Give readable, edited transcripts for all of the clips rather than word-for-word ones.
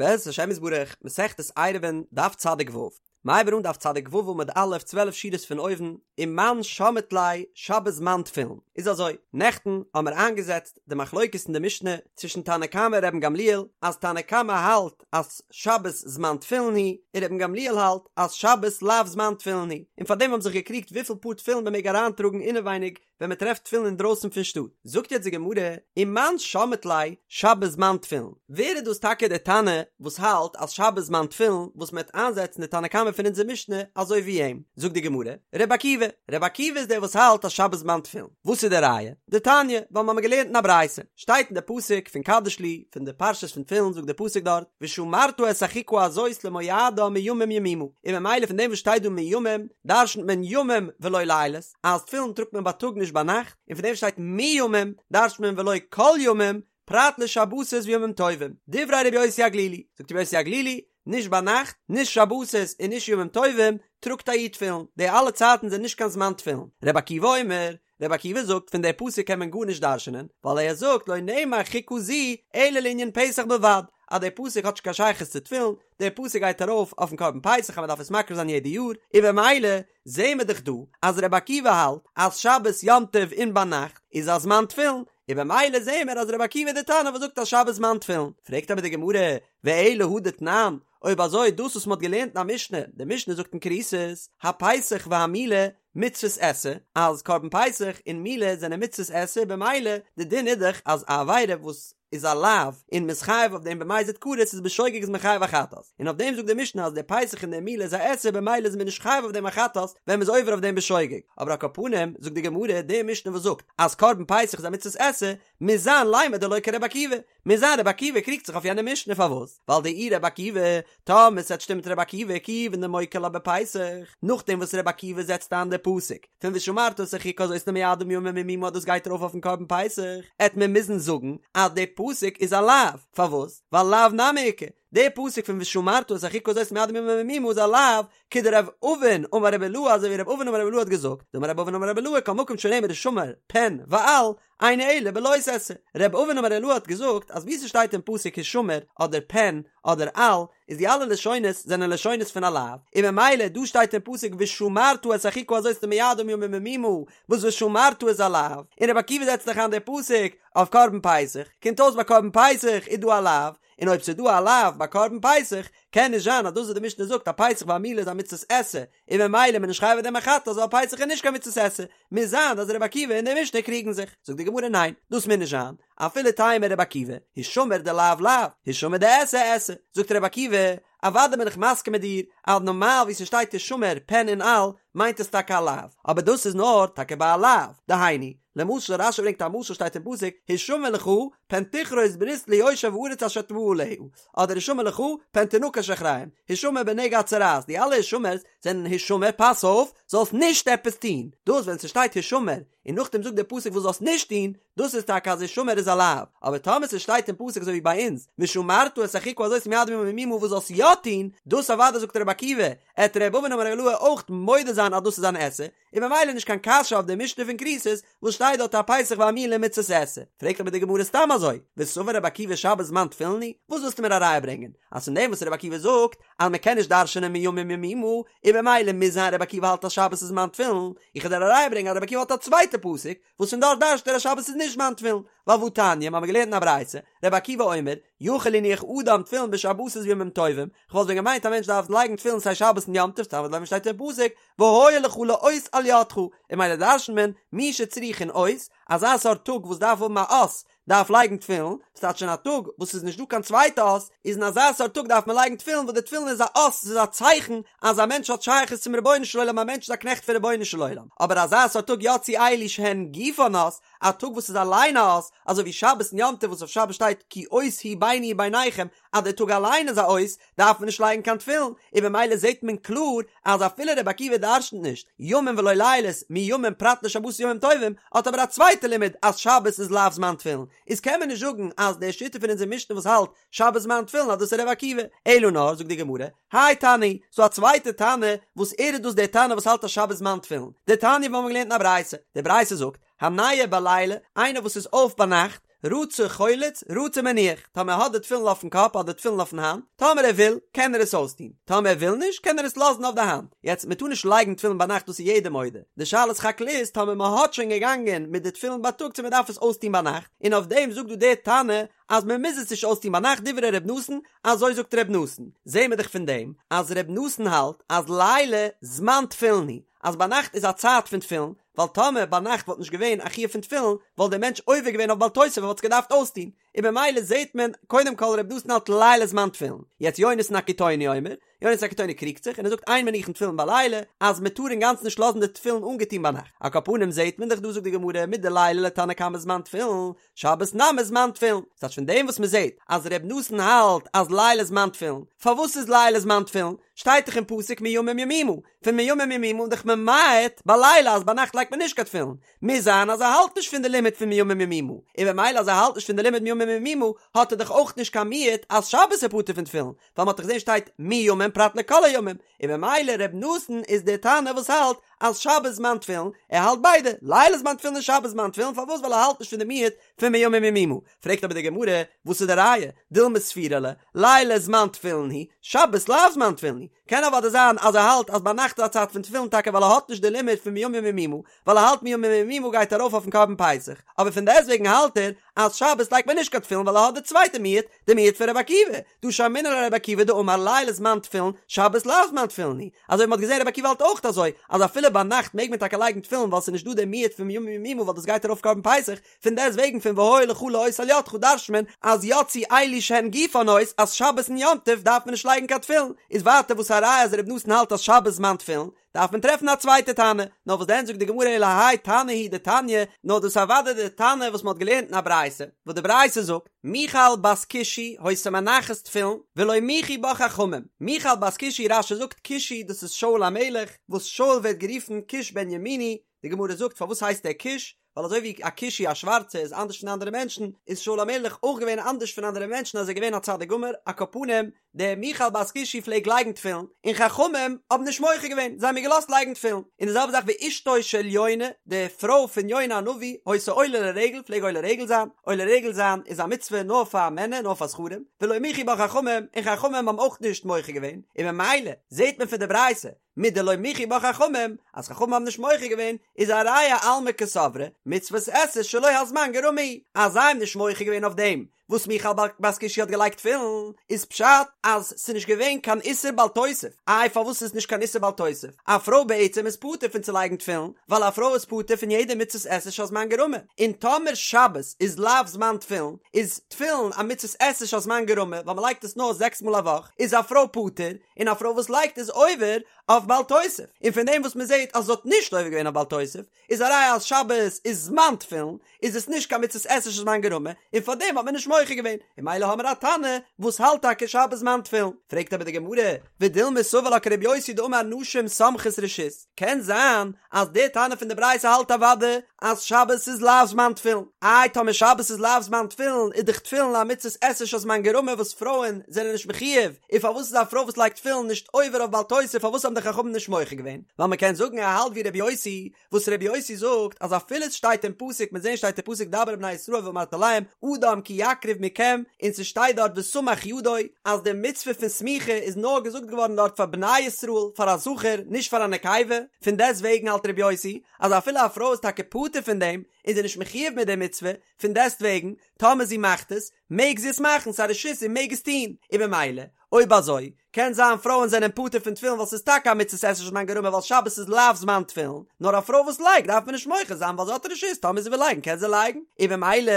בעזרת השם יתברך, מסכת עירובין, דף צדיק ו'. מ'הייבט אן דף צדיק ו' עמוד א', 12 שורות פון אויבן, ומאן שמעת ליה שבת זמן תפילין. איז אזוי, נעכטן האמער איינגעזעצט די מחלוקת אין די משנה צווישן תנא קמא און רבן גמליאל, אז תנא קמא האלט אז שבת זמן תפילין הוא, און רבן גמליאל האלט אז שבת לאו זמן תפילין הוא, און פארדעם האבן זיך געקריגט וויפיל פאר תפילין מען מעג אריינטראגן אינעווייניג ווען מען טרעפט תפילין אינדרויסן פון שטאט, זאגט יעצט די גמרא, ומאן שמעת ליה שבת זמן תפילין, ווער איז דאס טאקע דער תנא וואס האלט אז שבת זמן תפילין וואס מען וועט איינזעצן די תנא קמא פון אונזער משנה אזוי ווי אים, זאגט די גמרא, רבי עקיבא, רבי עקיבא איז דער וואס האלט אז שבת זמן תפילין, וואס איז די ראיה? דתניא, ווייל מיר האבן געלערנט אין א ברייתא, שטייט אין די פסוק פון קדש לי, פון די פרשת פון תפילין זאגט די פסוק דארט, ושמרת את החוקה הזאת למועדה מימים ימימה, און ממילא פון דעם וואס שטייט דא מימים דרשנ'ט מען ימים ולא לילות, אז תפילין טראגט מען בייטאג נישט ביינאכט, און פון דעם שטייט מימים דרש'ט מען ולא כל ימים, פרט לשבתות וימים טובים, דברי רבי יוסי הגלילי, זאגט רבי יוסי הגלילי, נישט ביינאכט, נישט שבתות און נישט ימים טובים, טראגט א איד תפילין, די אלע צייטן זענען נישט קיין זמן תפילין. רבי עקיבא אומר, רבי עקיבא זאגט פון די פסוק קען מען גארנישט דרש'נען, ווייל ער זאגט לא נאמר חוקה זו אלא לענין פסח בלבד, אז די פסוק האט נישט קיין שייכות צו תפילין, די פסוק גייט ארויף אויפן קרבן פסח אז מען דארף עס מקריב זיין יעדע יאר, און במילא זעהן מיר דאך דא אז רבי עקיבא האלט אז שבת יום טוב און ביינאכט איז א זמן תפילין, און במילא זעהן מיר אז רבי עקיבא איז די תנא וואס זאגט אז שבת זמן תפילין. פרעגט אבער די גמרא, ואלא הא דתנן, אויב אזוי דאס וואס מען האט געלערנט אין א משנה, די משנה זאגט אין כריתות, הפסח והמילה מצוות עשה, אז קרבן פסח און מילה זענען מצוות עשה, במילא די דין איז דאך אז א עבירה וואס איז א לאו און מ'איז חייב אויף דעם במזיד כרת איז בשוגג איז מען חייב א חטאת, און אויף דעם זאגט די משנה אז די פסח און די מילה איז א עשה במילא איז מען נישט חייב אויף דעם א חטאת ווען מ'איז עובר אויף דעם בשוגג, אבער על כל פנים זאגט די גמרא די משנה וואס זאגט אז קרבן פסח איז א מצוות עשה מוז זיין לימא דלא כרבי עקיבא, מוז זיין רבי עקיבא קריגט זיך אויף יענע משנה פארוואס? ווייל דאי רבי עקיבא, טאמער ס'עט שטימען מיט רבי עקיבא כיוון דמוקי לה בפסח, נאכדעם וואס רבי עקיבא זעצט איין די פסוק פון ושמרת את החוקה הזאת למועדה מימים ימימה אז דאס גייט ארויף אויפן קרבן פסח, עט מען מוזן זאגן אז די פסוק איז א לאו, פארוואס? ווייל לאו נמי איכא, די פסוק פון ושמרת את החוקה הזאת למועדה מימים ימימה איז א לאו, כדרב אבין אמר רבי אילעא אזוי ווי רב אבין אמר רבי אילעא האט געזאגט, דאמר רב אבין אמר רבי אילעא כל מקום שנאמר השמר פן ואל, אינו אלא בלא תעשה. רב אבין אמר רבי אילעא האט געזאגט אז ווי ס'שטייט אין פסוק השמר אדער פן אדער אל איז די אלע לשונות זענען לשונות פון א לאו, און ממילא דא שטייט אין פסוק ושמרת את החוקה הזאת למועדה מימים ימימה וואס ושמרת איז א לאו, און רבי עקיבא זעצט דאך איין די פסוק אויף קרבן פסח, קומט אויס ביי קרבן פסח איז דא א לאו, און אויב ס'איז דא א לאו ביי קרבן פסח קען נישט זיין אז דאס וואס די משנה זאגט אז פסח והמילה איז א מצות עשה און ממילא איז מען נישט חייב אויף דעם א חטאת ווייל פסח איז נישט קיין מצות עשה, מוז זיין אז רבי עקיבא און די משנה קריגן זיך, זאגט די גמרא ניין, דאס מוז נישט זיין, אפילו תימא רבי עקיבא, השמר דלאו לאו, השמר דעשה עשה, זאגט רבי עקיבא, אוודאי בין איך מסכים מיט דיר אז נארמאל ווי ס'שטייט השמר פן און אל מיינט עס טאקע א לאו, אבער דאס איז נאר טאקע ביי א לאו, דהיינו, למשל רשי ברענגט א משל שטייט אין פסוק השמר לך פן תכרות ברית ליושב הארץ אשר אתה בא עליה, אדער השמר לך פן תנקש אחריהם, השמר בנגע הצרעת, די אלע השמר'ס זענען השמר פאס אויף זאלסט נישט עפעס טון, דאס ווען ס'שטייט השמר און נאכדעם זאגט דער פסוק וואס זאלסט נישט טון, דאס איז טאקע אז השמר איז א לאו, אבער טאמער ס'שטייט אין פסוק אזוי ווי ביי אונז ושמרת את החוקה הזאת למועדה מימים ימימה וואס זאלסט יא טון, דאס אוודאי זאגט רבי עקיבא, עט ר' אבין אמר ר' אילעא אויך מודה זיין אז דאס איז אן עשה, און ממילא נישט קיין קשיא אויף די משנה פון כריתות וואס שטייט דארט הפסח והמילה מצות עשה, פרעגט אבער די גמרא סתם אזוי, וסבר רבי עקיבא שבת זמן תפילין הוא, וואס ווילסטו מיר א ראיה ברענגען אז פון דעם וואס רבי עקיבא זאגט אז מען קען נישט דרש'נען מימים ימימה, און ממילא מוז זיין רבי עקיבא האלט אז שבת איז זמן תפילין, איך וועל דיר א ראיה ברענגען אז רבי עקיבא האלט א צווייטע פסוק וואס פון דארט דרש'ט ער אז שבת איז נישט זמן תפילין, ווייל והתניא, מ'האמיר געלערנט אין א ברייתא, רבי עקיבא אומר, יכול יניח אדם תפילין בשבתות וימים טובים, כ'וואלט ווען געמיינט א מענטש דארף לייגן תפילין סיי שבת און יום טוב, תלמוד לומר שטייט אין פסוק, והיה לך לאות על ידך, און ממילא דרש'נט מען, מי שצריכין אות, אזא סארט טאג וואס דארף האבן א אות, דארף לייגן תפילין, ס'טייטש אין א טאג וואס ס'איז נישט דא קיין צווייטע אות, איז אין אזא סארט טאג דארף מען לייגן תפילין וואס די תפילין איז א אות, ס'איז א צייכן אז א מענטש האט שייכות צום רבונו של עולם, א מענטש איז א קנעכט פון רבונו של עולם, אבער אזא סארט טאג יצאו אלו שהן גופן אות, א טאג וואס איז אליין א אות, אזוי ווי שבת און יום טוב וואס אויף שבת שטייט כי אות הוא ביני וביניכם, אז דער טאג אליין איז א אות, דארף מען נישט לייגן קיין תפילין, און במילא זעט מען קלאר אז אפילו רבי עקיבא דרשנ'ט נישט ימים ולא לילות מימים פרט לשבתות וימים טובים, האט אבער א צווייטע לימוד אז שבת איז לאו זמן תפילין, איז קען מען נישט זאגן אז די שיטה פון אונזער משנה וואס האלט שבת זמן תפילין אז דאס איז רבי עקיבא, אלא נאר זאגט די גמרא, האי תנא הוא, ס'דא א צווייטע תנא וואס ער איז דאס דער תנא וואס האלט אז שבת זמן תפילין, דתניא וואס מ'האט געלערנט אין א ברייתא, די ברייתא זאגט, הניעור בלילה, איינער וואס איז אויף ביינאכט, רצה חולץ, רצה מניח, טאמער ער האט די תפילין אויפן קאפ אדער תפילין אויפן האנט, טאמער ער וויל, קען ער עס אויסטון, טאמער ער וויל נישט, קען ער עס לאזן אויף די האנט. יעצט, מען טאר נישט לייגן תפילין ביינאכט דאס איז יעדער מודה, די שאלה סך הכל איז טאמער מען האט שוין געגאנגען מיט די תפילין בייטאג צו מען דארף עס אויסטון ביינאכט, און אויף דעם זאגט דא דער תנא אז מען מוז עס נישט אויסטון ביינאכט דברי ר' נתן, אזוי זאגט ר' נתן, זעהן מיר דאך פון דעם אז ר' נתן האלט אז לילה זמן תפילין הוא, אז ביינאכט איז א צייט פון תפילין, ווייל טאמער ביינאכט וואלט נישט געווען א חיוב פון תפילין וואלט דער מענטש עובר געווען אויף בל תוסיף און וואלט עס געדארפט אויסטון, און במילא זעהט מען קודם כל ר' נתן האלט לילה זמן תפילין, יעצט יונתן הקיטוני אומר, יונתן הקיטוני קריגט זיך און ער זאגט אין מניחין תפילין בלילה אז מען טאר אינגאנצן נישט לאזן די תפילין אנגעטון ביינאכט, על כל פנים זעהט מען דאך דא זאגט די גמרא מדלילה לתנא קמא זמן תפילין, שבת נמי זמן תפילין, ס'טייטש פון דעם וואס מען זעט אז ר' נתן האלט אז לילה זמן תפילין, פארוואס איז לילה זמן תפילין? שטייט דאך אין פסוק מימים ימימה, פון מימים ימימה איז דאך ממעט בלילה אז ביינאכט לייגט מען נישט קיין תפילין, מוז זיין אז ער האלט נישט פון די לימוד פון מימים ימימה, און במילא אז ער האלט נישט פון די לימוד מימים ימימה האט ער דאך אויך נישט קיין מיעוט אז שבת איז פטור פון תפילין, ווייל מ'האט דאך געזען שטייט מימים פרט לכל הימים, און במילא ר' נתן איז דער תנא וואס האלט אז שבת זמן תפילין, ער האלט ביידע, לילה זמן תפילין און שבת זמן תפילין, פארוואס ווייל ער האלט נישט פון די מיעוט פון מימים ימימה, פרעגט אבער די גמרא, וואס איז די ראיה, דילמא סבירא ליה, לילה זמן תפילין הוא, שבת לאו זמן תפילין הוא, קען אוודאי זיין אז ער האלט אז ביינאכט איז א צייט פון תפילין טאקע ווייל ער האט נישט די לימוד פון מימים ימימה, ווייל ער האלט מימים ימימה גייט ארויף אויפן קרבן פסח, אבער פון דעסטוועגן האלט ער אז שבת לייגט מען נישט קיין תפילין ווייל ער האט די צווייטע מיעוט, די מיעוט פון רבי עקיבא, דהא שמעינן ליה לרבי עקיבא דאמר לילה זמן תפילין, שבת לאו זמן תפילין הוא, אזוי ווי מ'האט געזען רבי עקיבא האלט אויך אזוי, אז אפילו ביינאכט מעג מען טאקע לייגן תפילין ווייל ס'איז נישט דא די מיעוט פון מימים ימימה ווייל דאס גייט ארויף קרבן פסח, פון דעסט וועגן פון והיה לך לאות על ידך דרש'ט מען אז יצאו אלו שהן גופן אות אז שבת און יום טוב דארף מען נישט לייגן קיין תפילין, איז ווייטער וואס א ראיה אז רבי נתן האלט אז שבת זמן תפילין, דארף מען טרעפן א צווייטע תנא, נאר וואס דען זאגט די גמרא אלא האי תנא הוא דתניא, נאר דאס איז אוודאי די תנא וואס מען האט געלערנט אין א ברייתא, וואס די ברייתא זאגט, מיכל בת כושי היתה מנחת תפילין, ולא מיחו בה חכמים, מיכל בת כושי רש"י זאגט כושי דאס איז שאול המלך, וואס שאול ווערט גערופן כוש בן ימיני, די גמרא זאגט פארוואס הייסט ער כוש, ווייל אזוי ווי א כושי א שווארצע איז אנדערש פון אנדערע מענטשן, איז שאול המלך אויך געווען אנדערש פון אנדערע מענטשן אז ער איז געווען א צדיק גמור, על כל פנים, די מיכל בת כושי פלעג לייגן תפילין, און חכמים האבן נישט מוחה געווען, זיי האבן איר געלאזט לייגן תפילין, און די זעלבע זאך ואשתו של יונה, די פרוי פון יונה הנביא, היתה עולה לרגל, פלעג עולה רגל זיין, עולה רגל זיין איז א מצוה נאר פאר מענער, נאר פאר זכרים, ולא מיחו בה חכמים, און חכמים האבן אויך נישט מוחה געווען, און ממילא זעט מען פון די ברייתא, מדלא מיחו בה חכמים, אז חכמים האבן נישט מוחה געווען, איז א ראיה אלמא קסברי, מצוות עשה שלא הזמן גרמא היא, אז זיי האבן נישט מוחה געווען אויף דעם וואס מיכל בת כושי האט געלייגט תפילין, איז פשט אז ס'איז נישט געווען קיין איסור בל תוסיף, איי פארוואס איז נישט קיין איסור בל תוסיף? א פרוי בעצם איז פטור פון צו לייגן תפילין, ווייל א פרוי איז פטור פון יעדע מצוות עשה שהזמן גרמא, און טאמער שבת איז לאו זמן תפילין, איז תפילין א מצוות עשה שהזמן גרמא, ווייל מ'לייגט עס נאר זעקס מאל א וואך, איז א פרוי פטור, און א פרוי וואס לייגט איז עובר אויף בל תוסיף, און פון דעם וואס מען זעט אז זי האט נישט עובר געווען אויף בל תוסיף, איז א ראיה אז שבת איז זמן תפילין, איז עס נישט קיין מצות עשה שהזמן גרמא, און פאר דעם האט מען נישט מוחה געווען, און ממילא האמיר א תנא וואס האלט טאקע שבת זמן תפילין. פרעגט אבער די גמרא, ודילמא סבר לה כרבי יוסי דאמר נשים סומכות רשות, קען זיין אז דער תנא פון די ברייתא האלט אוודאי אז שבת איז לאו זמן תפילין, איי טאמער שבת איז לאו זמן תפילין איז דאך תפילין א מצות עשה שהזמן גרמא וואס פרויען זענען נישט מחיוב, און פארוואס איז א פרוי וואס לייגט תפילין נישט עובר אויף בל תוסיף פארוואס האבן די חכמים נישט מוחה געווען? ווייל מען קען זאגן ער האלט ווי רבי יוסי, וואס רבי יוסי זאגט אז אפילו עס שטייט אין פסוק מיר זעהן שטייט אין פסוק דבר אל בני ישראל ואמרת אליהם אדם כי יקריב מכם און ס'שטייט דארט וסמך ידו אז די מצוה פון סמיכה איז נאר געזאגט געווארן דארט פאר בני ישראל פאר א זכר נישט פאר א נקבה, פון דעסט וועגן האלט רבי יוסי אז אפילו א פרוי איז טאקע פטור פון דעם און זי איז נישט מחיוב מיט די מצוה, פון דעסט וועגן טאמער זי מאכט עס מעג זי עס מאכן ס'איז א רשות זי מעג עס טון, און במילא אויב אזוי קען זיין פרויען זענען פטור פון תפילין ווייל ס'איז טאקע א מצות עשה שהזמן גרמא ווייל שבת איז לאו זמן תפילין, נאר א פרוי וואס לייגט דארף מען נישט מוחה זיין ווייל זי האט רשות טאמער זי וויל לייגן קען זי לייגן, און במילא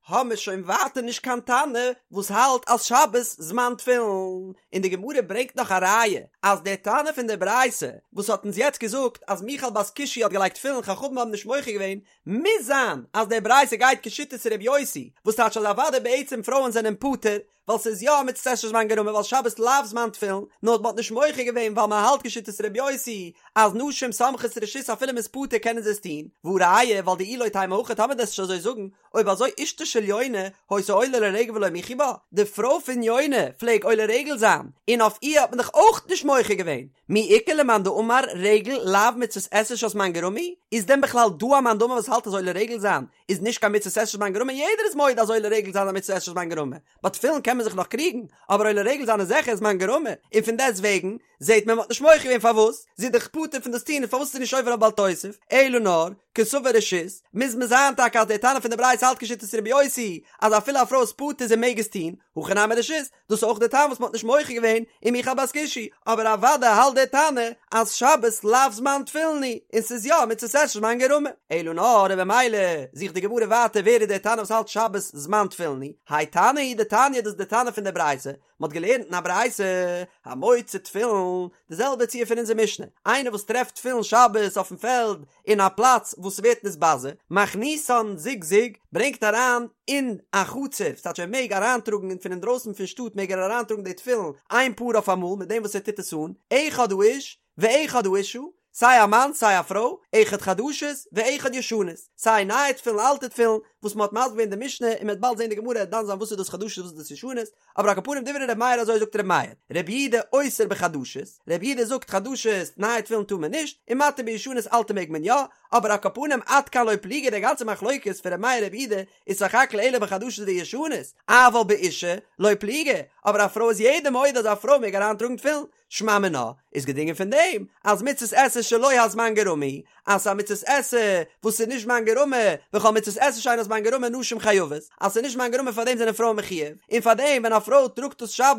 האמיר שוין ווייטער נישט קיין תנא וואס האלט אז שבת זמן תפילין, און די גמרא ברענגט נאך א ראיה אז דער תנא פון די ברייתא וואס האט אונז יעצט געזאגט אז מיכל בת כושי האט געלייגט תפילין חכמים האבן נישט מוחה געווען, מוז זיין אז די ברייתא גייט כשיטת ר' יוסי, וואס טייטש אז אוודאי בעצם פרויען זענען פטור, ווייל ס'איז יא א מצות עשה שהזמן גרמא ווייל שבת לאו זמן תפילין, נאר מ'האט נישט מוחה געווען ווייל מ'האלט כשיטת ר' יוסי אז נשים סומכות רשות אפילו מ'איז פטור קענען זיי עס טון, והא ראיה ווייל דאי לא תימא הכי טאמער דו וועסט נישט אזוי זאגן, אויב אזוי אשתו של יונה היתה עולה לרגל ולא מיחו בה, די פרוי פון יונה פלעג עולה רגל זיין און אויף איר האט מען דאך אויך נישט מוחה געווען, מי איכא למאן דאמר רגל לאו מצות עשה שהזמן גרמא היא? איז דען בכלל דא א מאן דאמר וואס האלט אז עולה רגל זיין איז נישט קיין מצות עשה שהזמן גרמא? יעדער איז מודה אז עולה רגל זיין איז א מצות עשה שהזמן גרמא, ביי תפילין קען מען זיך נאך קריגן, אבער עולה רגל זיין איז זיכער זמן גרמא, און פון דעסט וועגן זעט מען מ'האט נישט מוחה געווען פארוואס, זי איז דאך פטור פון דאס טון און פארוואס איז זי נישט עובר אויף בל תוסיף, אלא נאר, קסבר רשות, מוז מען זיין טאקע אז דער תנא פון די ברייתא האלט כשיטת רבי יוסי, אז אפילו א פרוי איז פטור זי מעג עס טון, הכא נמי רשות, דאס איז אויך דער טעם וואס מ'האט נישט מוחה געווען ומיכל בת כושי, אבער אוודאי האלט דער תנא אז שבת לאו זמן תפילין הוא, און ס'איז יא מצות עשה שהזמן גרמא. אלא נאר און במילא זוכט די גמרא ווייטער ווער איז דער תנא וואס האלט שבת זמן תפילין הוא, האי תנא הוא דתניא דאס איז דער תנא פון דער ברייתא, מ'האט געלערנט אין א ברייתא, המוצא תפילין, די זעלבע ציור פון אונזער משנה, איינער וואס טרעפט תפילין שבת אויפן פעלד אין א פלאץ וואס ס'ווערט נתבזה, מכניסן זוג זוג, ברענגט אריין אין א חצר, ס'טייטש ער מעג אריינטראגן פון אינדרויסן פון שטאט מעג ער אריינטראגן די תפילין איין פאר אויף אמאל מיט דעם וואס ער טוט עס אן, אחד האיש ואחד האשה, סיי א מאן סיי א פרוי, אחד חדשות ואחד ישנות, סיי נייע תפילין אלטע תפילין, וואס מען האט מסביר געווען די משנה און מען וועט באלד זען די גמרא דן זיין וואס איז דאס חדשות וואס איז דאס ישנות, אבער על כל פנים דברי ר' מאיר אזוי זאגט ר' מאיר, ר' יהודה אוסר בחדשות, ר' יהודה זאגט חדשות נייע תפילין טאר מען נישט, און מתיר בישנות אלטע מעג מען יא, אבער על כל פנים עד כאן לא פליגי די גאנצע מחלוקת פון ר' מאיר ר' יהודה איז סך הכל אלא בחדשות וישנות, אבל באשה לא פליגי, אבער א פרוי איז יעדער מודה אז א פרוי מעג אריינטראגן תפילין, שמע מינה, איז געדרינגען פון דעם אז מצות עשה שלא הזמן גרמא היא, אז ס'איז א מצות עשה וואס איז נישט זמן גרמא, וכל מצות עשה שאין הזמן גרמא נשים חייבות, אז ס'איז נישט זמן גרמא פאר דעם זענען פרויען מחויב, און פאר דעם ווען א פרוי טראגט עס שבת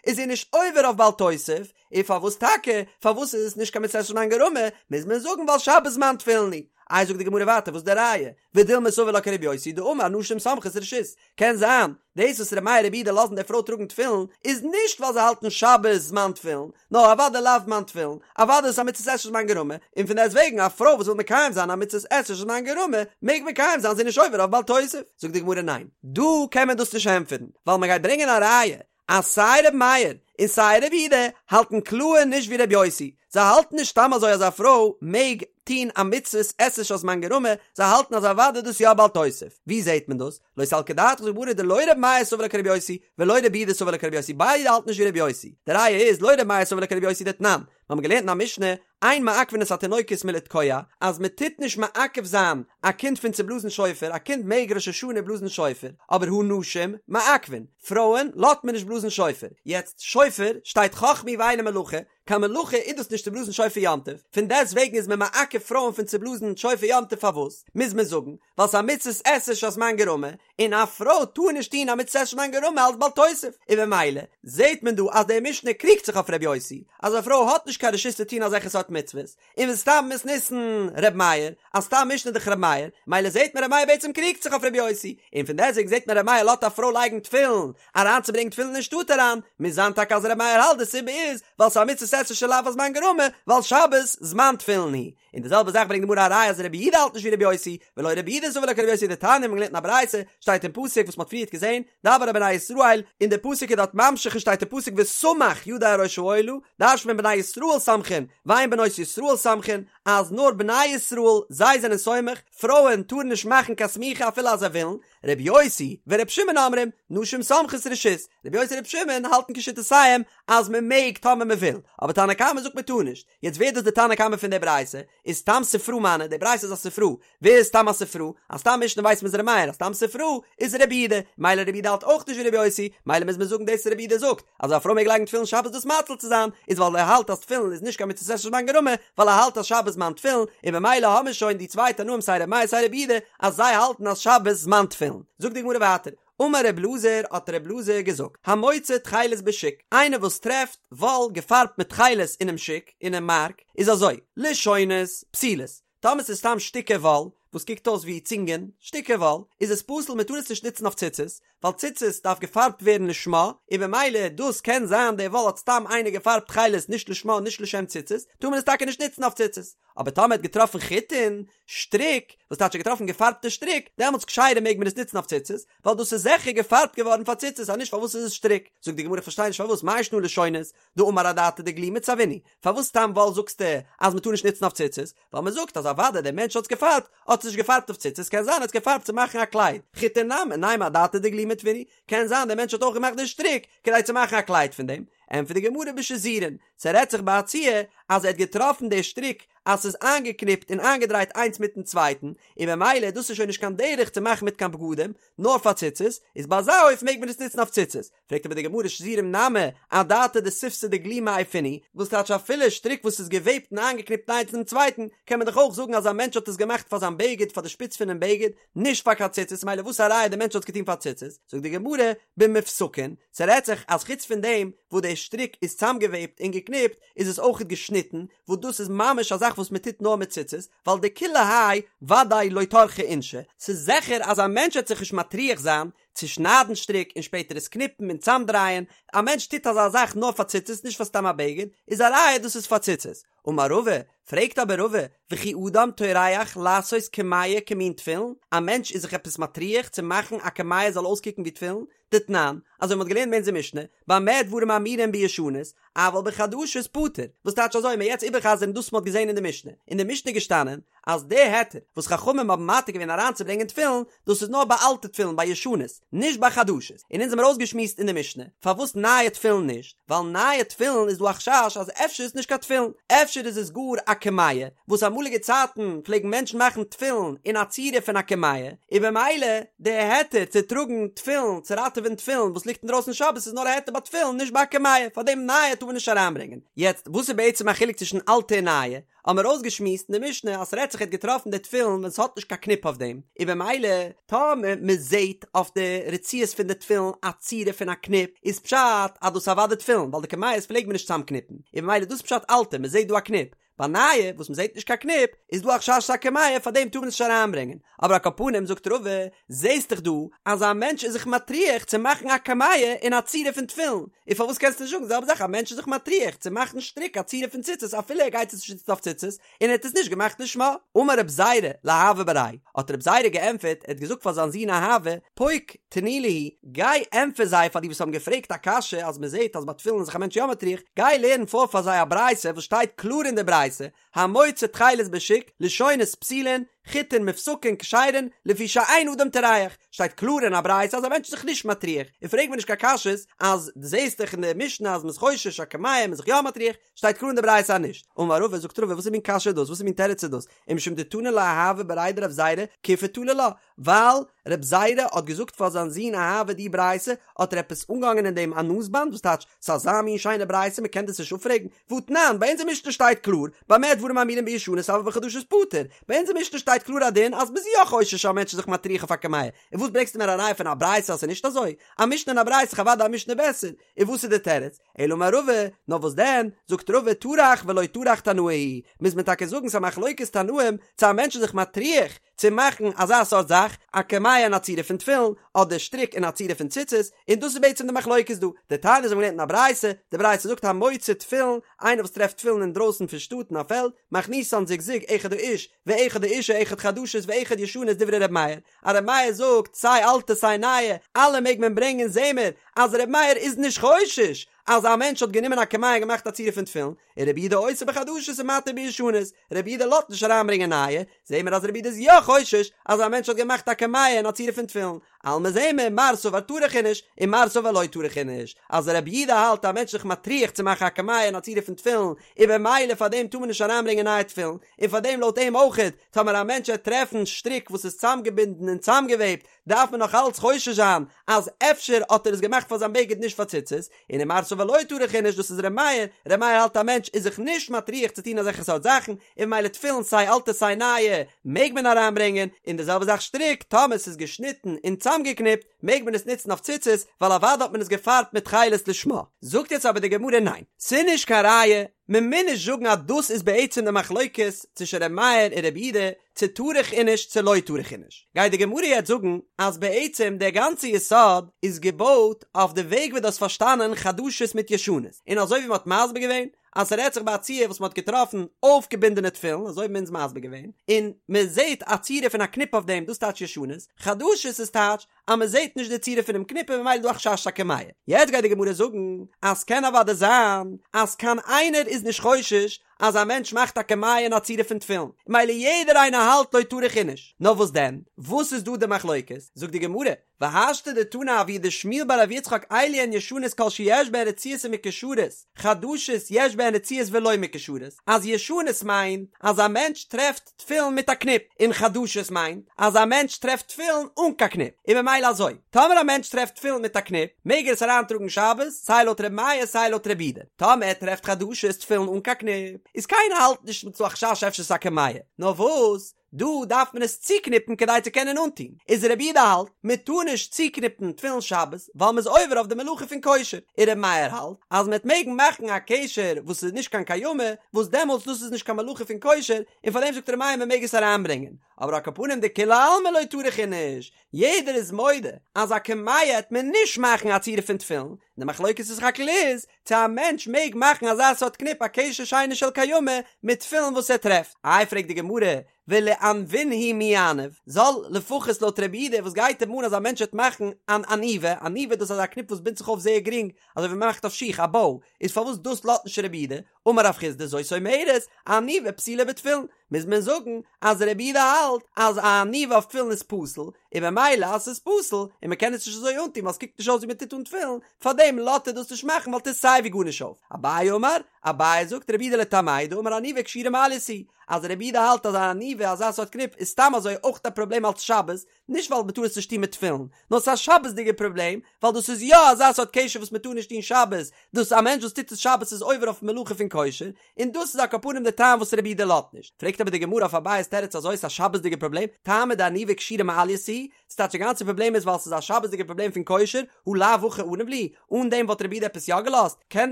איז זי נישט עובר אויף בל תוסיף, און פארוואס טאקע, פארוואס איז עס נישט קיין מצות עשה שהזמן גרמא, מוז מען זאגן ווייל שבת זמן תפילין הוא. איי זאגט די גמרא ווייטער וואס איז די ראיה, ודילמא סבר לה כרבי יוסי דאמר נשים סומכות רשות, קען זיין, דאס וואס ר' מאיר ר' יהודה לאזן די פרוי טראגן תפילין איז נישט ווייל זיי האלטן שבת זמן תפילין, נאר אוודאי לאו זמן תפילין, אוודאי איז עס א מצות עשה שהזמן גרמא, און פון דעסט וועגן א פרוי וואס וויל מקיים זיין א מצות עשה שהזמן גרמא מעג מקיים זיין זי איז נישט עובר אויף בל תוסיף. זאגט די גמרא ניין, דא קען מען דאס נישט ענטפערן, ווייל מען גייט ברענגען א ראיה אז סיי ר' מאיר און סיי ר' יהודה האלטן קלאהר נישט ווי ר' יוסי, זיי האלטן נישט סתם אזוי אז א פרוי מעג טוהן א מצות עשה שהזמן גרמא, זיי האלטן אז אוודאי דאס יא בל תוסיף. ווי זעהט מען דאס? לא סלקא דעתך זאגט די גמרא דלא ר' מאיר סבר לה כר' יוסי ולא ר' יהודה סבר לה כר' יוסי ביידע האלטן נישט ווי ר' יוסי. די ראיה איז לא ר' מאיר סבר לה כר' יוסי דתנן, מיר האבן געלערנט אין א משנה אין מעכבין את התינוקות מלתקוע, אז מען טוט נישט מעכב זיין א קינד פון צו בלאזן שופר, א קינד מעג ראש השנה בלאזן שופר, אבער הנשים מעכבין, פרויען לאזט מען נישט בלאזן שופר, יעצט שופר שטייט חכמה היא ואינה מלאכה, קיין מלאכה איז דאס נישט צו בלאזן שופר יום טוב, פון דעסט וועגן איז מען מעכב פרויען פון צו בלאזן שופר יום טוב פארוואס מוז מען זאגן ווייל ס'איז א מצות עשה שהזמן גרמא, און א פרוי טאר נישט טון א מצות עשה שהזמן גרמא אלס בל תוסיף, און במילא זעט מען דא אז די משנה קריגט זיך אויף ר' יוסי אז א פרוי האט נישט קיין רשות צו טון אזעלכע סארט מצוות, און וסתם מתניתין ר' מאיר, אז סתם משנה איז דאך ר' מאיר, מילא זעט מען ר' מאיר בעצם קריגט זיך אויף ר' יוסי, און פון דעסטוועגן זעט מען ר' מאיר לאזט א פרוי לייגן תפילין, אריינצוברענגן תפילין אין שטאט אריין, מוז זיין טאקע אז ר' מאיר האלט די סיבה איז ווייל ס'איז א מצות עשה שלאו הזמן גרמא, ווייל שבת זמן תפילין הוא. און די זעלבע זאך ברענגט די גמרא א ראיה אז רבי יהודה האלט נישט ווי רבי יוסי, ולא רבי יהודה סבר לה כרבי יוסי דתניא מ'האט געלערנט אין א ברייתא, שטייט אין פסוק וואס מ'האט פריערט געזען, דבר אל בני ישראל, און די פסוק איז דארט ממשיך און שטייט אין פסוק וסמך ידו על ראש העולה, דרש'נט מען בני ישראל סומכין, ואין בנות ישראל סומכין, אז נאר בני ישראל זיי זענען סומך, פרויען טארן נישט מאכן קיין סמיכה אפילו אז זיי ווילן, רבי יוסי ורבי שמעון אומרים, נשים סומכות רשות, רבי יוסי און רבי שמעון האלטן כשיטותיהם אז מ'מעג טאמער מ'וויל, אבער תנא קמא זאגט מ'טאר נישט. יעצט ווער דאס די תנא קמא פון די ברייתא? איז סתם ספרא מני, די ברייתא איז א ספרא, ווער איז סתם א ספרא? א סתם משנה ווייסט מען איז ר' מאיר, א סתם ספרא איז רבי יהודה, מילא רבי יהודה האלט אויך נישט ווי רבי יוסי, מילא מוז מען זאגן דאס רבי יהודה זאגט אז א פרוי מעג לייגן תפילין שבת דאס מציל צו זיין, איז ווייל ער האלט אז תפילין איז נישט קיין מצות עשה שהזמן גרמא, ווייל ער האלט אז שבת זמן תפילין, און במילא האמיר שוין די צוויי תנאים סיי ר' מאיר סיי רבי יהודה אז זיי האלטן אז שבת זמן תפילין. זאגט די גמרא ווייטער, אמר רב אלעזר האט רב אלעזר געזאגט, המוצא תכלת בשוק, איינער וואס טרעפט וואל געפארבט מיט תכלת אינעם שוק, אינעם מארק, איז אזוי, לשונות, פסולות, טאמער ס'איז סתם שטיקער וואל, וואס קוקט אויס ווי צינגען, שטיקער וואל, איז עס פסול מען טאר עס נישט נוצן אויף ציצית, ווייל ציצית דארף געפארבט ווערן לשמה, און במילא דאס קען זיין די וואל האט סתם איינער געפארבט תכלת נישט לשמה נישט לשם ציצית, טאר מען עס טאקע נישט נוצן אויף ציצית. אבער טאמער האט געטראפן חוטין, שטריק, וואס טייטש ער האט געטראפן געפארבטע שטריק, דעמאלטס כשרה מעג מען עס נוצן אויף ציצית, ווייל דאס איז זיכער געפארבט געווארן פאר ציצית, אז נישט פארוואס איז עס שטריק? זאגט די גמרא איך פארשטיי נישט פארוואס מאי שנא לשונות, דאמר אדעתא דגלימא צבעינהו, פארוואס סתם וואל זאגסטו אז מען טאר נישט נוצן אויף ציצית, ווייל מען זאגט אז אוודאי דער מענטש האט עס געפארבט, האט עס נישט געפארבט אויף ציצית, קען זיין ער האט עס געפארבט צו מאכן א קלייד, חוטין נמי, נימא אדעתא דגלימא טוינהו, קען זיין דער מענטש האט אויך געמאכט די שטריק כדי צו מאכן א קלייד פון דעם. ענטפערט די גמרא בשזורין, ס'רעדט זיך ביי א ציור אז ער האט געטראפן די שטריק אז ס'איז איינגעקניפט און איינגעדרייט איינס מיטן צווייטן, און במילא דאס איז שוין נישט קיין דרך צו מאכן מיט קיין בגדים, נאר פאר ציצית, איז ביי אזא אופן מעג מען עס נוצן אויף ציצית. פרעגט אבער די גמרא שזורים נמי, אדעתא דשיפתא דגלימא עייפינהו, וואס טייטש אפילו שטריק וואס איז געוועבט און איינגעקניפט איינס אינעם צווייטן, קען מען דאך אויך זאגן אז א מענטש האט עס געמאכט פאר זיין בגד פאר די שפיץ פונעם בגד, נישט פאר קיין ציצית, מילא וואס א ראיה די מענטש האט עס געטון פאר ציצית? זאגט די גמרא, במופסקין, ס'רעדט זיך אז חוץ פון דעם וואס די שטריק איז צאמגעוועבט און געקניפט, איז עס אויכעט געשניטן, וואס דאס איז ממש א זאך וואס מען טוט נאר מיט ציצית, ווייל דכולי האי ודאי לא טרחי אינשי, ס'איז זיכער אז א מענטש וועט זיך נישט מטריח זיין צו שניידן שטריק און שפעטער עס קניפן און צאמדרייען, א מענטש טוט אזא זאך נאר פאר ציצית נישט פאר סתם א בגד, איז א ראיה דאס איז פאר ציצית. אמר רבא, פרעגט אבער רבא, וכי אדם טורח לעשות קמיע כמין תפילין, א מענטש איז זיך עפעס מטריח צו מאכן א קמיע זאל אויסקוקן ווי תפילין? דתנן, אזוי מ'האט געלערנט אין אונזער משנה, במה דברים אמורים בישנות, אבל בחדשות פטור, וואס טייטש אזוי, מ'עט יעצט איבערחזר'ן דאס מ'האט געזען אין די משנה, אין די משנה איז געשטאנען, אז די היתר וואס חכמים האבן מתיר געווען אריינצוברענגען תפילין, דאס איז נאר ביי אלטע תפילין ביי ישנות, נישט ביי חדשות, און אונז האמיר אויסגעשמועסט אין די משנה, פארוואס נייע תפילין נישט, ווייל נייע תפילין איז דא א חשש אז אפשר איז נישט קיין תפילין, אפשר איז עס גאר א קמיע, וואס אמאליגע צייטן פלעגן מענטשן מאכן תפילין אין א צורה פון א קמיע, און במילא די היתר צו טראגן תפילין, צו ראטעווען תפילין וואס ליגט אינדרויסן שבת איז נאר א היתר ביי תפילין נישט ביי א קמיע, פארדעם נייע טאר מען נישט אריינברענגען. יעצט וואס איז בעצם א חילוק צווישן אלטע און נייע? האבן מיר אויסגעשמועסט אין די משנה אז ס'רעדט זיך ער האט געטראפן די תפילין ווען ס'האט נישט קיין קניפ אויף דעם, און במילא טאמער מ'זעהט אויף די רצועות פון די תפילין א צורה פון א קניפ איז פשט אז דאס איז אוודאי תפילין ווייל די קמיעות פלעגט מען נישט צאמקניפן, און במילא דאס איז פשט אלטע מ'זעהט דא א קניפ, ביי נייע וואס מ'זעהט נישט קיין קניפ איז דא א חשש ס'איז א קמיע פאר דעם טאר מען עס נישט אריינברענגען, אבער על כל פנים זאגט רבא זעהסט דאך דא אז א מענטש איז זיך מטריח צו מאכן א קמיע אין א צורה פון תפילין, און פארוואס קענסטו נישט זאגן די זעלבע זאך א מענטש איז זיך מטריח צו מאכן שטריק א צורה פון ציצית אפילו ער גייט עס נישט נוצן אויף ציצית און ער האט עס נישט געמאכט לשמה. אמר רב זירא לאהבה בריה, האט רב זירא געענטפערט, ער האט געזאגט פאר זיין זון אהבה, פוק תני להו, גיי ענטפער זיי פאר די וואס האבן געפרעגט א קשיא אז מען זעט אז ביי תפילין איז זיך א מענטש יא מטריח, גיי לערן פאר פאר זיי א ברייתא וואס שטייט קלאר אין די ברייתא, המוצא תכלת בשוק, לשונות פסולין, חוטין מופסקין כשרין, לפי שאין אדם טורח, שטייט קלאר אין א ברייתא אז א מענטש איז זיך נישט מטריח, און פרעג מיר נישט קיין קשיות אז דו זעסט דאך אין די משנה אז מ'איז חושש א קמיע מ'איז זיך יא מטריח, שטייט קלאר אין די ברייתא אז נישט. אמר רבא, זאגט רבא, וואס איז מין קשיא דאס? וואס איז מין תירוץ איז דאס? ומשום דתני לה אהבה בריה דרב זירא כיפי תלי לה, ווייל רב זירא האט געזאגט פאר זיין זון אהבה די ברייתא, האט ער עפעס אנגעהאנגען אין דעם א נאז-באנד, וואס טייטש, ס'איז אזא מין שיינע ברייתא מ'קען דאס נישט אפפרעגן, והתנן, ביי אונזער משנה שטייט קלאר, במה דברים אמורים בישנות אבל בחדשות פטור, ביי אונזער משנה שטייט קלאר א דין אז מ'איז יא חושש אז א מענטש איז זיך מטריח אויף א קמיע, און וואס ברענגסטו מיר א ראיה פון א ברייתא אז ס'איז נישט אזוי? א משנה און א ברייתא איז אוודאי א משנה בעסער, און וואס איז די תירוץ? אלא אמר רבא, נאר וואס דען, זאגט רבא טרח ולא טרח תנאי היא, מוז מען טאקע זאגן ס'איז א מחלוקת תנאים צו א מענטש איז זיך מטריח צו מאכן אזא סארט זאך, א קמיע אין א צורה פון תפילין, אדער שטריק אין א צורה פון ציצית, און דאס איז בעצם די מחלוקת דא. דתניא אזוי האבן געלערנט אין א ברייתא, די ברייתא זאגט המוצא תפילין, איינער וואס טרעפט תפילין אינדרויסן פון שטאט אין א פעלד, מכניסן זוג זוג אחד האיש ואחד האישה אחד חדשות ואחד ישנות דברי ר' מאיר, אז ר' מאיר זאגט סיי אלטע סיי נייע אלע מעג מען ברענגען זעהן מיר אז ר' מאיר איז נישט חושש אז א מענטש האט גענומען א קמיע און געמאכט א צורה פון תפילין, און רבי יהודה אוסר בחדשות ומתיר בישנות, רבי יהודה לאזט נישט אריינברענגען נייע, זעהן מיר אז רבי יהודה איז יא חושש אז א מענטש האט געמאכט א קמיע אין א צורה פון תפילין, אלמא זעהן מיר מר סבר טרח איניש און מר סבר לא טרח איניש, אז רבי יהודה האלט א מענטש זיך מטריח צו מאכן א קמיע אין א צורה פון תפילין, און במילא פאר דעם טאר מען נישט אריינברענגען נייע תפילין, און פאר דעם לויט אים אויכעט, טאמער א מענטש וועט טרעפן שטריק וואס איז צאמגעבינדן און צאמגעוועבט, דארף מען נאך אלץ חושש זיין אז אפשר האט ער עס געמאכט פאר זיין בגד נישט פאר ציצית, און ומר סבר לא טרח איניש דאס איז ר' מאיר, ר' מאיר האלט א מענטש איז זיך נישט מטריח צו טון אזעלכע סארט זאכן, און ממילא תפילין סיי אלטע סיי נייע מעג מען אריינברענגען, און די זעלבע זאך שטריק, טאמער ס'איז געשניטן און צאמגעקניפט מעג מען עס נוצן אויף ציצית, ווייל אוודאי האט מען עס געפארבט מיט תכלת לשמה. זאגט יעצט אבער די גמרא ניין, ס'איז נישט קיין ראיה, מען מוז נישט זאגן אז דאס איז בעצם די מחלוקת צווישן ר' מאיר און ר' יהודה, צו טרח איניש צו לא טרח איניש, גייט די גמרא יעצט זאגן אז בעצם דער גאנצע יסוד איז געבויט אויף די וועג ווי דו האסט פארשטאנען חדשות מיט ישנות, און אזוי ווי מען האט מסביר געווען אז ס'רעדט זיך ביי א ציור וואס מען האט געטראפן אויפגעבינדענע תפילין, אזוי האבן אונז מסביר געווען, און מען זעט א צורה פון א קניפ אויף דעם, דאס טייטש ישנות, חדשות איז טייטש אז מען זעט נישט די צורה פונעם קניפ און ממילא איז דא א חשש א קמיע. יעצט גייט די גמרא זאגן אז ס'קען אוודאי זיין אז קיין איינער איז נישט חושש אז א מענטש מאכט א קמיע אין א צורה פון תפילין, מילא יעדער איינער האלט לא טרח איניש, נאר וואס דען? וואס איז דא די מחלוקת? זאגט די גמרא, והשתא דתנא אבוה דשמואל בר רב יצחק אלו הן ישנות כל שיש בהן רצועות ומקושרות, חדשות יש בהן רצועות ולא מקושרות, אז ישנות מיינט אז א מענטש טרעפט תפילין מיט א קניפ, און חדשות מיינט אז א מענטש טרעפט תפילין אן קיין קניפ, און ממילא אזוי, טאמער א מענטש טרעפט תפילין מיט א קניפ, מעג ער עס אריינטראגן שבת, סיי לויט ר' מאיר סיי לויט ר' יהודה, טאמער ער טרעפט חדשות תפילין אן קיין קניפ, איז קיינער האלט נישט ס'איז דא א חשש אפשר ס'איז א קמיע, נאר וואס? דא דארף מען עס צוקניפן כדי צו קענען אנטון, איז רבי יהודה האלט מען טאר נישט צוקניפן תפילין שבת ווייל מען איז עובר אויף די מלאכה פון קושר, און רבי מאיר האלט אז מען וועט מעגן מאכן א קשר וואס איז נישט קיין קיימא וואס דעמאלטס דאס איז נישט קיין מלאכה פון קושר און פארדעם זאגט רבי מאיר מען מעג עס אריינברענגען, אבער על כל פנים דכולי עלמא לא טרח איניש, יעדער איז מודה אז א קמיע העט מען נישט מאכן א צורה פון תפילין, און די מחלוקת איז סך הכל איז צו א מענטש מעג מאכן אזא סארט קניפ א קשר שאינו של קיימא מיט תפילין וואס ער טרעפט. איי פרעגט די גמרא, ולענוינהו מי יעניב, זאל לפחות לויט רבי יהודה וואס גייט אים אן אז א מענטש וועט מאכן אן עניבה, עניבה דאס איז אזא קניפ וואס בינדט זיך אויף זייער גרינג אזוי ווי מען מאכט אויף שיך א באו, איז פארוואס דאס לאזט נישט רבי יהודה, אמר רב חסדא זאת אומרת, עניבה פסולה בתפילין, מוז מען זאגן אז רבי יהודה האלט אז א עניבה אויף תפילין איז פסול, און ממילא אז ס'איז פסול, און מ'קען עס נישט אזוי אנטון ווייל ס'קוקט נישט אויס ווי מ'טוט אן תפילין, פארדעם לאזט ער דאס נישט מאכן ווייל טוט סיי ווי גארנישט אויף. אביי אמר, אביי זאגט רבי יהודה לטעמיה דאמר עניבה קשירה מעלייתא היא, אז רבי יהודה האלט אז א עניבה אזא סארט קניפ איז סתם אזוי אויך א פראבלעם אלץ שבת, נישט ווייל מ'טאר עס נישט טון מיט תפילין, נאר ס'איז א שבת'דיגע פראבלעם, ווייל דאס איז יא אזא סארט קשר וואס מ'טאר נישט טון שבת, דאס א מענטש וואס טוט עס שבת איז עובר אויף מלאכה פון קושר, און דאס איז על כל פנים די טעם וואס רבי יהודה לאזט נישט. פרעגט אבער די גמרא אויף אביי'ס תירוץ אזוי ס'איז א שבת'דיגע פראבלעם, טעמא דעניבה קשירה מעלייתא היא, ס'טייטש די גאנצע פראבלעם איז ווייל ס'איז א שבת'דיגע פראבלעם פון קושר, הא לאו הכי עניב להו, אן דעם וואלט רבי יהודה עפעס יא געלאזט? קען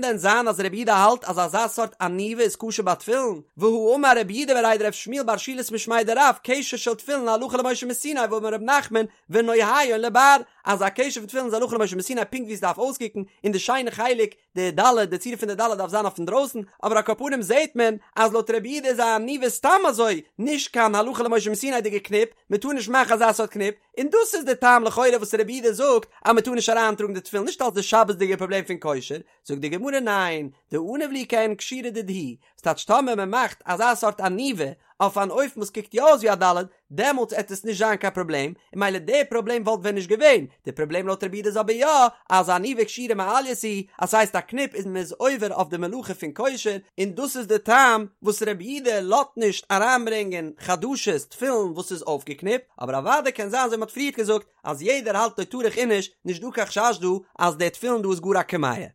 דען זיין אז רבי יהודה האלט אז אזא סארט עניבה איז כשר ביי תפילין? והא אמר רב יהודה בריה דרב שמואל בר שילת משמיה דרב קשר של תפילין הלכה למשה מסיני ואמר רב נחמן ונוייהן לבר אז א קשר פון תפילין איז הלכה למשה מסיני פונקט ווי עס דארף אויסקוקן און די שיינע חלק די ד' די צורה פון די ד' דארף זיין אויף אינדרויסן, אבער על כל פנים זעהט מען אז לויט רבי יהודה איז א עניבה סתם אזוי נישט קיין הלכה למשה מסיני'דיגע קניפ, מען טאר נישט מאכן אזא סארט קניפ, און דאס איז די טעם לכאורה וואס רבי יהודה זאגט אז מען טאר נישט אריינטראגן די תפילין נישט אלס די שבת'דיגע פראבלעם פון קושר, זאגט די גמרא ניין, דעניב להו כעין קשירה דידהו, ס'טייטש טאמער מען מאכט אזא סארט עניבה אויף אן אופן וואס קוקט יא אויס ווי א ד', דעמאלטס עט עס נישט זיין קיין פראבלעם, און ממילא די פראבלעם וואלט ווען נישט געווען, די פראבלעם לויט רבי יהודה איז אבער יא, אז עניבה קשירה מעלייתא היא, אז ס'הייסט א קניפ איז מען איז עובר אויף די מלאכה פון קושר, און דאס איז די טעם וואס רבי יהודה לאזט נישט אריינברענגען חדשות תפילין וואס איז אויפגעקניפט, אבער אוודאי קען זיין אזוי ווי מ'האט פריערט געזאגט אז יעדער האלט לא טרח איניש, נישט דא קיין חשש דא אז די תפילין דא איז גאר א קמיע.